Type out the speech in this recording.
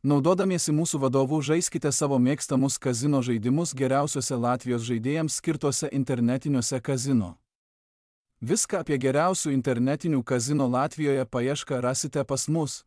Naudodamiesi mūsų vadovu žaiskite savo mėgstamus kazino žaidimus geriausiuose Latvijos žaidėjams skirtuose internetiniuose kazino. Viską apie geriausių internetinių kazino Latvijoje paiešką rasite pas mus.